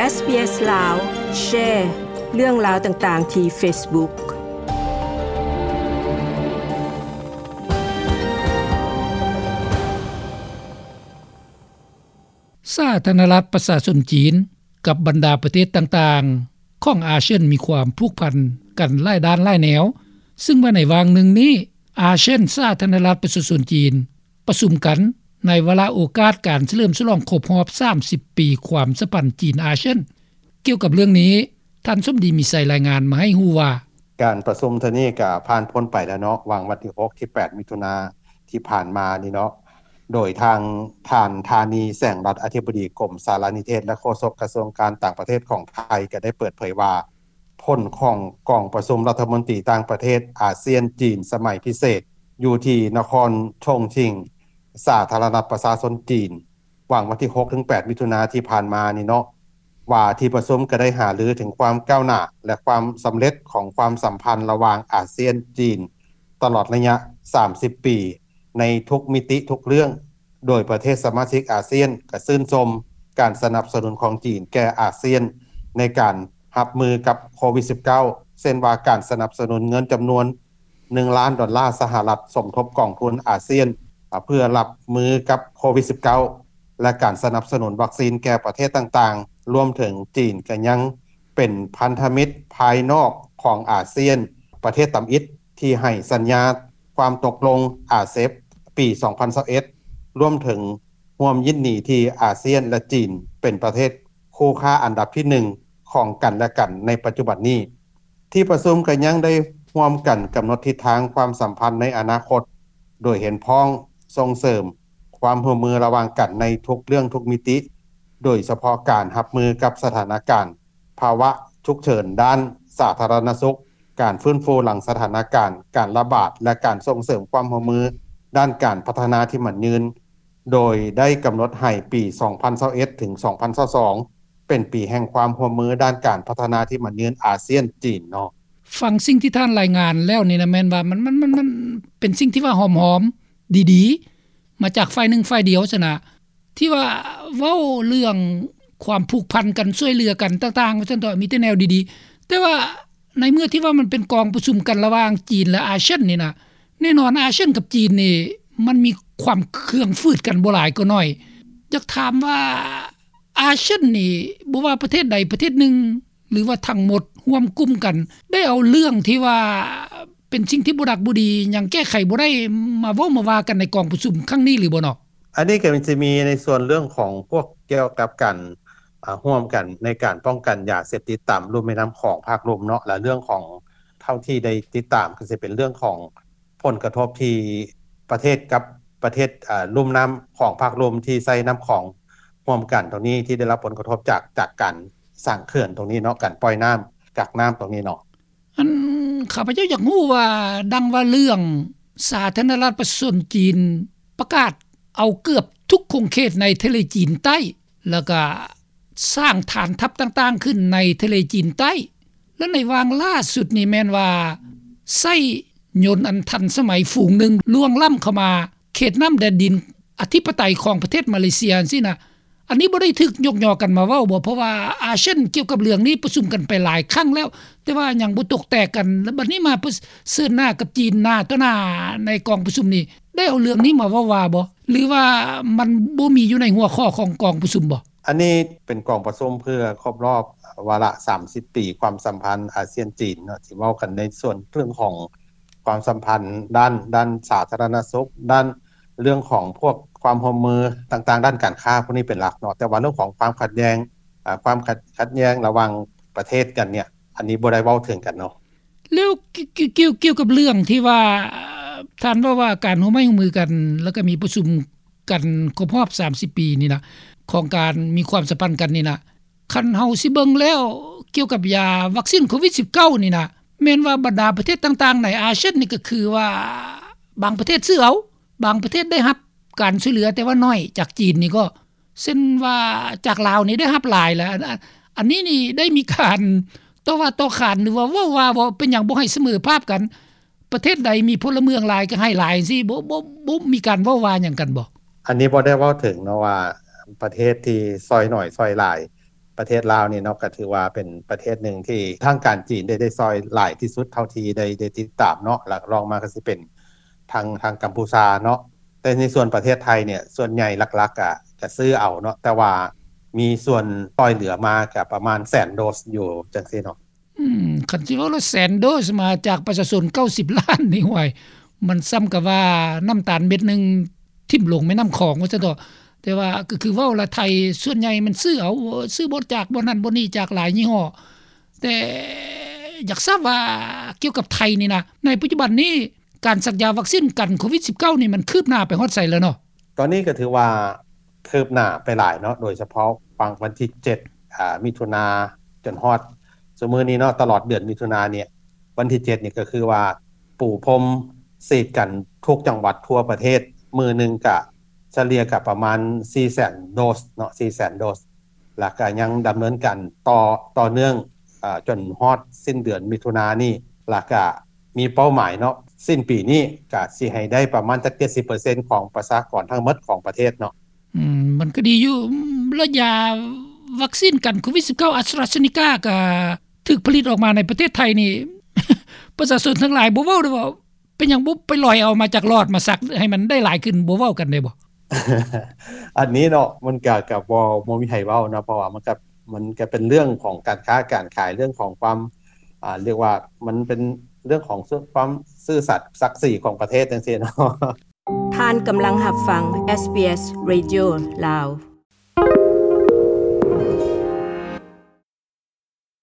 ເອສບີເອສລາວ ແຊເລື່ອງລາວຕ່າງໆທີ່ເຟສບຸກ. ສາທາລະນະລັດປະຊາຊົນຈີນ ກັບບັນດາປະເທດຕ່າງໆຂອງອາຊຽນ ມີຄວາມຜູກພັນກັນຫຼາຍດ້ານຫຼາຍແນວ, ຊຶ່ງວ່າໃນຫວ່າງໜຶ່ງນີ້ ອາຊຽນ ສາທາລະນະລັດປະຊາຊົນຈີນ ປະຊຸມກັນໃນວາລະໂອກາດການສະເຫຼີມສະຫຼອງຄົບຮອບສາມສິບປີຄວາມສຳພັນຈີນ-ອາຊຽນ. ກ່ຽວກັບເລື່ອງນີ້ ທ່ານສົມດີ ມີໄຊ ລາຍງານມາໃຫ້ຮູ້ວ່າ, ການປະຊຸມເທື່ອນີ້ກໍຜ່ານພົ້ນໄປແລ້ວເນາະ, ຫວ່າງວັນທີຫົກ ທີແປດ ມິຖຸນາທີ່ຜ່ານມານີ້ເນາະ, ໂດຍທາງທ່ານ ທານີ ແສງລັດ ອະທິບໍດີກົມສາລະນິເທດ ແລະ ໂຄສົກກະຊວງການຕ່າງປະເທດຂອງໄທ ກໍໄດ້ເປີດເຜີຍວ່າ ຜົນຂອງກອງປະຊຸມລັດຖະມົນຕີຕ່າງປະເທດອາຊຽນ-ຈີນສະໄໝພິເສດ ຢູ່ທີ່ນະຄອນຊົງຊິງ ສາທາລະນະລັດປະຊາຊົນຈີນ ຫວ່າງວັນທີຫົກ ເຖິງ ແປດ ມິຖຸນາທີ່ຜ່ານມານີ້ເນາະ ວ່າທີ່ປະຊຸມກໍໄດ້ຫາລືເຖິງຄວາມກ້າວໜ້າ ແລະ ຄວາມສຳເລັດຂອງຄວາມສຳພັນລະຫວ່າງອາຊຽນ-ຈີນ ຕະຫຼອດໄລຍະສາມສິບປີ ໃນທຸກມິຕິທຸກເລື່ອງ, ໂດຍປະເທດສະມາຊິກອາຊຽນກໍຊື່ນຊົມການສະໜັບສະໜູນຂອງຈີນແກ່ອາຊຽນໃນການຮັບມືກັບໂຄວິດສິບເກົ້າ ເຊັ່ນວ່າການສະໜັບສະໜູນເງິນຈຳນວນ ໜຶ່ງລ້ານດອນລາສະຫະລັດ ສົມທົບກອງທຶນອາຊຽນ ເພື່ອຮັບມືກັບໂຄວິດສິບເກົ້າ ແລະ ການສະໜັບສະໜູນວັກຊີນແກ່ປະເທດຕ່າງໆ ລວມເຖິງຈີນກໍຍັງເປັນພັນທະມິດພາຍນອກຂອງອາຊຽນ ປະເທດທຳອິດທີ່ໃຫ້ສັນຍາຄວາມຕົກລົງອາເຊັບ ປີສອງພັນຊາວເອັດ ລວມເຖິງຮ່ວມຍິນດີທີ່ອາຊຽນ ແລະ ຈີນ ເປັນປະເທດຄູ່ຄ້າອັນດັບທີໜຶ່ງຂອງກັນແລະກັນໃນປັດຈຸບັນນີ້. ທີ່ປະຊຸມກໍຍັງໄດ້ຮ່ວມກັນກຳນົດທິດທາງຄວາມສຳພັນໃນອະນາຄົດ ໂດຍເຫັນພ້ອມສົ່ງເສີມຄວາມຮ່ວມມືລະຫວ່າງກັນໃນທຸກເລື່ອງທຸກມິຕິ, ໂດຍສະເພາະການຮັບມືກັບສະຖານະການພາວະສຸກເສີນດ້ານສາທາລະນະສຸກ, ການຟື້ນຟູຫຼັງສະຖານະການການລະບາດ ແລະ ການສົ່ງເສີມຄວາມຮ່ວມມືດ້ານການພັດທະນາທີ່ໝັ້ນຍືນ. ໂດຍໄດ້ກຳນົດໃຫ້ປີສອງພັນຊາວເອັດ ເຖິງ ສອງພັນຊາວສອງ ເປັນປີແຫ່ງຄວາມຮ່ວມມືດ້ານການພັດທະນາທີ່ໝັ້ນຍືນອາຊຽນ-ຈີນເນາະ. ຟັງສິ່ງທີ່ທ່ານລາຍງານແລ້ວນີ້ນະ ແມ່ນວ່າມັນ ມັນ ມັນ ມັນເປັນສິ່ງທີ່ວ່າຫອມໆ ດີໆ ມາຈາກຝ່າຍໜຶ່ງຝ່າຍດຽວຊັ້ນນະ ທີ່ວ່າເວົ້າເລື່ອງຄວາມຜູກພັນກັນ ຊ່ວຍເຫຼືອກັນຕ່າງໆ ວ່າຊັ້ນເຖາະ ມີແຕ່ແນວດີໆ. ແຕ່ວ່າໃນເມື່ອທີ່ວ່າມັນເປັນກອງປະຊຸມກັນລະຫວ່າງຈີນ ແລະ ອາຊຽນນີ້ນະ ແນ່ນອນ ອາຊຽນກັບຈີນນີ້ ມັນມີຄວາມເຄືອງຝືດກັນບໍ່ຫຼາຍກໍໜ້ອຍ. ຢາກຖາມວ່າ ອາຊຽນນີ້ ບໍ່ວ່າປະເທດໃດປະເທດໜຶ່ງ ຫຼືວ່າທັງໝົດຮ່ວມກຸ່ມກັນ ໄດ້ເອົາເລື່ອງທີ່ວ່າເປັນສິ່ງທີ່ບໍ່ດັກບໍ່ດີ ຫຍັງແກ້ໄຂບໍ່ໄດ້ ມາເວົ້າມາວ່າກັນໃນກອງປະຊຸມຄັ້ງນີ້ຫຼືບໍ່ເນາະ? ອັນນີ້ກໍຈະມີໃນສ່ວນເລື່ອງຂອງພວກກ່ຽວກັບການ ອາ ຮ່ວມກັນໃນການປ້ອງກັນຢາເສບຕິດຕາມລຸ່ມແມ່ນ້ຳຂອງພາກລຸ່ມເນາະ ແລະ ເລື່ອງຂອງ ເທົ່າທີ່ໄດ້ຕິດຕາມ ກໍຊິເປັນເລື່ອງຂອງຜົນກະທົບທີ່ປະເທດກັບປະເທດ ອາ ລຸ່ມນ້ຳຂອງພາກລຸ່ມທີ່ໃຊ້ນ້ຳຂອງຮ່ວມກັນຕົງນີ້ ທີ່ໄດ້ຮັບຜົນກະທົບຈາກ ຈາກການສ້າງເຂື່ອນຕົງນີ້ເນາະ ການປ່ອຍນ້ຳ ກັກນ້ຳຕົງນີ້ເນາະ. ອັນ ຂ້າພະເຈົ້າຢາກຮູ້ວ່າ ດັ່ງວ່າເລື່ອງສາທາລະນະລັດປະຊາຊົນຈີນປະກາດເອົາເກືອບທຸກຂົງເຂດໃນທະເລຈີນໃຕ້ ແລ້ວກະສ້າງຖານທັບຕ່າງໆຂຶ້ນໃນທະເລຈີນໃຕ້ ແລະ ໃນຫວ່າງລ່າສຸດນີ້ແມ່ນວ່າ ໃຊ້ຍົນອັນທັນສະໄໝຝູງໜຶ່ງລ່ວງລ້ຳເຂົ້າມາເຂດນ້ຳແດນດິນອະທິປະໄຕຂອງປະເທດມາເລເຊຍຈັ່ງຊີ້ນະ. ອັນນີ້ບໍ່ໄດ້ຖືກຍົກຍໍກັນມາເວົ້າບໍ? ເພາະວ່າອາຊຽນກ່ຽວກັບເລື່ອງນີ້ປະຊຸມກັນໄປຫຼາຍຄັ້ງແລ້ວ ແຕ່ວ່າຍັງບໍ່ຕົກແຕກກັນ ແລ້ວບັດນີ້ມາປະເຊີນໜ້າກັບຈີນໜ້າຕໍ່ໜ້າໃນກອງປະຊຸມນີ້ ໄດ້ເອົາເລື່ອງນີ້ມາເວົ້າວ່າບໍ? ຫຼືວ່າມັນບໍ່ມີຢູ່ໃນຫົວຂໍ້ຂອງກອງປະຊຸມບໍ? ອັນນີ້ເປັນກອງປະຊຸມເພື່ອຄົບຮອບວາລະສາມສິບປີຄວາມສຳພັນອາຊຽນ-ຈີນເນາະ ທີ່ເວົ້າກັນໃນສ່ວນເລື່ອງຂອງຄວາມສຳພັນດ້ານ ດ້ານສາທາລະນະສຸກ ດ້ານ ເລື່ອງຂອງພວກຄວາມຮ່ວມມືຕ່າງໆ ດ້ານການຄ້າພວກນີ້ເປັນຫຼັກເນາະ ແຕ່ວ່າເລື່ອງຂອງຄວາມຂັດແຍ່ງ ອາ ຄວາມຂັດ ຂັດແຍ່ງລະຫວ່າງປະເທດກັນເນ່ຍ ອັນນີ້ບໍ່ໄດ້ເວົ້າເຖິງກັນເນາະ. ແລ້ວ ກ່ຽວ ກ່ຽວ ກ່ຽວກັບເລື່ອງທີ່ວ່າ ທ່ານເວົ້າວ່າການຮ່ວມໄມ້ຮ່ວມມືກັນ ແລ້ວກໍມີປະຊຸມກັນຄົບຮອບສາມສິບປີນີ້ນະ ຂອງການມີຄວາມສຳພັນກັນນີ້ນະ ຄັນເຮົາຊິເບິ່ງແລ້ວ ກ່ຽວກັບຢາວັກຊີນໂຄວິດສິບເກົ້ານີ້ນະ ແມ່ນວ່າບັນດາປະເທດຕ່າງໆໃນອາຊຽນນີ້ ກໍຄືວ່າບາງປະເທດຊື້ເອົາ ບາງປະເທດໄດ້ຮັບການຊ່ວຍເຫຼືອ ແຕ່ວ່າໜ້ອຍ ຈາກຈີນນີ້ກໍ ເຊັ່ນວ່າຈາກລາວນີ້ໄດ້ຮັບຫຼາຍແລ້ວ ອັນ ອັນ ອັນນີ້ນີ້ໄດ້ມີການຕໍ່ວ່າຕໍ່ຂານ ຫຼືວ່າເວົ້າວ່າບໍ່ ເປັນຫຍັງບໍ່ໃຫ້ສະເໝີພາບກັນ ປະເທດໃດມີພົນລະເມືອງຫຼາຍກໍໃຫ້ຫຼາຍຈັ່ງຊີ້ ບໍ່ ບໍ່ ບໍ່ມີການເວົ້າວ່າຫຍັງກັນບໍ? ອັນນີ້ບໍ່ໄດ້ເວົ້າເຖິງເນາະວ່າ ປະເທດທີ່ຊ່ອຍໜ້ອຍຊ່ອຍຫຼາຍ ປະເທດລາວນີ້ເນາະ ກໍຖືວ່າເປັນປະເທດໜຶ່ງທີ່ທາງການຈີນໄດ້ ໄດ້ຊ່ອຍຫຼາຍທີ່ສຸດເທົ່າທີ່ໄດ້ ໄດ້ຕິດຕາມເນາະ ແລ້ວລອງມາກໍຊິເປັນທາງ ທາງກັມພູຊາເນາະ. ແຕ່ໃນສ່ວນປະເທດໄທນີ້ ສ່ວນໃຫຍ່ຫຼັກໆ ກໍ ກໍຊື້ເອົາເນາະ ແຕ່ວ່າມີສ່ວນຊ່ອຍເຫຼືອມາກໍປະມານແສນໂດສຢູ່ຈັ່ງຊີ້ເນາະ. ອືມ ຄັນຊິເວົ້າແລ້ວແສນໂດສມາຈາກປະຊາຊົນເກົ້າສິບລ້ານນີ້ ຫ້ວຍ ມັນສ່ຳກັບວ່ານ້ຳຕານເມັດໜຶ່ງຖິ້ມລົງແມ່ນ້ຳຂອງວ່າຊັ້ນເຖາະ. ແຕ່ວ່າກໍຄືເວົ້າລະ ໄທສ່ວນໃຫຍ່ມັນຊື້ເອົາ ຊື້ບໍ່ຈາກບ່ອນນັ້ນບ່ອນນີ້ ຈາກຫຼາຍຍີ່ຫໍ້. ແຕ່ຢາກຊາບວ່າກ່ຽວກັບໄທນີ້ນະ ໃນປັດຈຸບັນນີ້ ການສັກຢາວັກຊີນກັນໂຄວິດສິບເກົ້ານີ້ ມັນຄືບໜ້າໄປຮອດໃສແລ້ວເນາະ? ຕອນນີ້ກໍຖືວ່າຄືບໜ້າໄປຫຼາຍເນາະ ໂດຍສະເພາະຟັງວັນທີເຈັດ ອາ ມິຖຸນາ ຈົນຮອດຊຸມື້ນີ້ເນາະ ຕະຫຼອດເດືອນມິຖຸນານີ້ ວັນທີເຈັດນີ້ກໍຄືວ່າປູພົມສີດກັນທຸກຈັງຫວັດທົ່ວປະເທດ ມື້ໜຶ່ງກະສະເລ່ຍກະປະມານສີ່ແສນໂດສເນາະ ສີ່ແສນໂດສ. ແລ້ວກະຍັງດຳເນີນການຕໍ່ ຕໍ່ເນື່ອງ ອາ ຈົນຮອດສິ້ນເດືອນມິຖຸນານີ້ ແລ້ວກະມີເປົ້າໝາຍເນາະ ສິ້ນປີນີ້ກະຊິໃຫ້ໄດ້ປະມານຈັກເຈັດສິບເປີເຊັນຂອງປະຊາກອນທັງໝົດຂອງປະເທດເນາະ. ອືມ ມັນກໍດີຢູ່ ລະຢາວັກຊີນກັນໂຄວິດສິບເກົ້າ ອາສຕຣາເຊນີກາ ກໍຖືກຜະລິດອອກມາໃນປະເທດໄທນີ້ ປະຊາຊົນທັງຫຼາຍບໍ່ເວົ້າເດ້ວ່າ ເປັນຫຍັງບໍ່ໄປລອຍເອົາມາຈາກຫຼອດມາສັກໃຫ້ມັນໄດ້ຫຼາຍຂຶ້ນ ບໍ່ເວົ້າກັນໄດ້ບໍ່? ອັນນີ້ເນາະ ມັນກະ ກະບໍ່ ບໍ່ມີໃຜເວົ້າເນາະ ເພາະວ່າມັນກະ ມັນກະເປັນເລື່ອງຂອງການຄ້າການຂາຍ ເລື່ອງຂອງຄວາມ ອາ ຮຽກວ່າມັນເປັນເລື່ອງຂອງຄວາມຊື່ສັດສັກສີຂອງປະເທດຈັ່ງຊີ້ເນາະ. ທ່ານກຳລັງຮັບຟັງ ເອສບີເອສ ເຣດິໂອ ລາວ.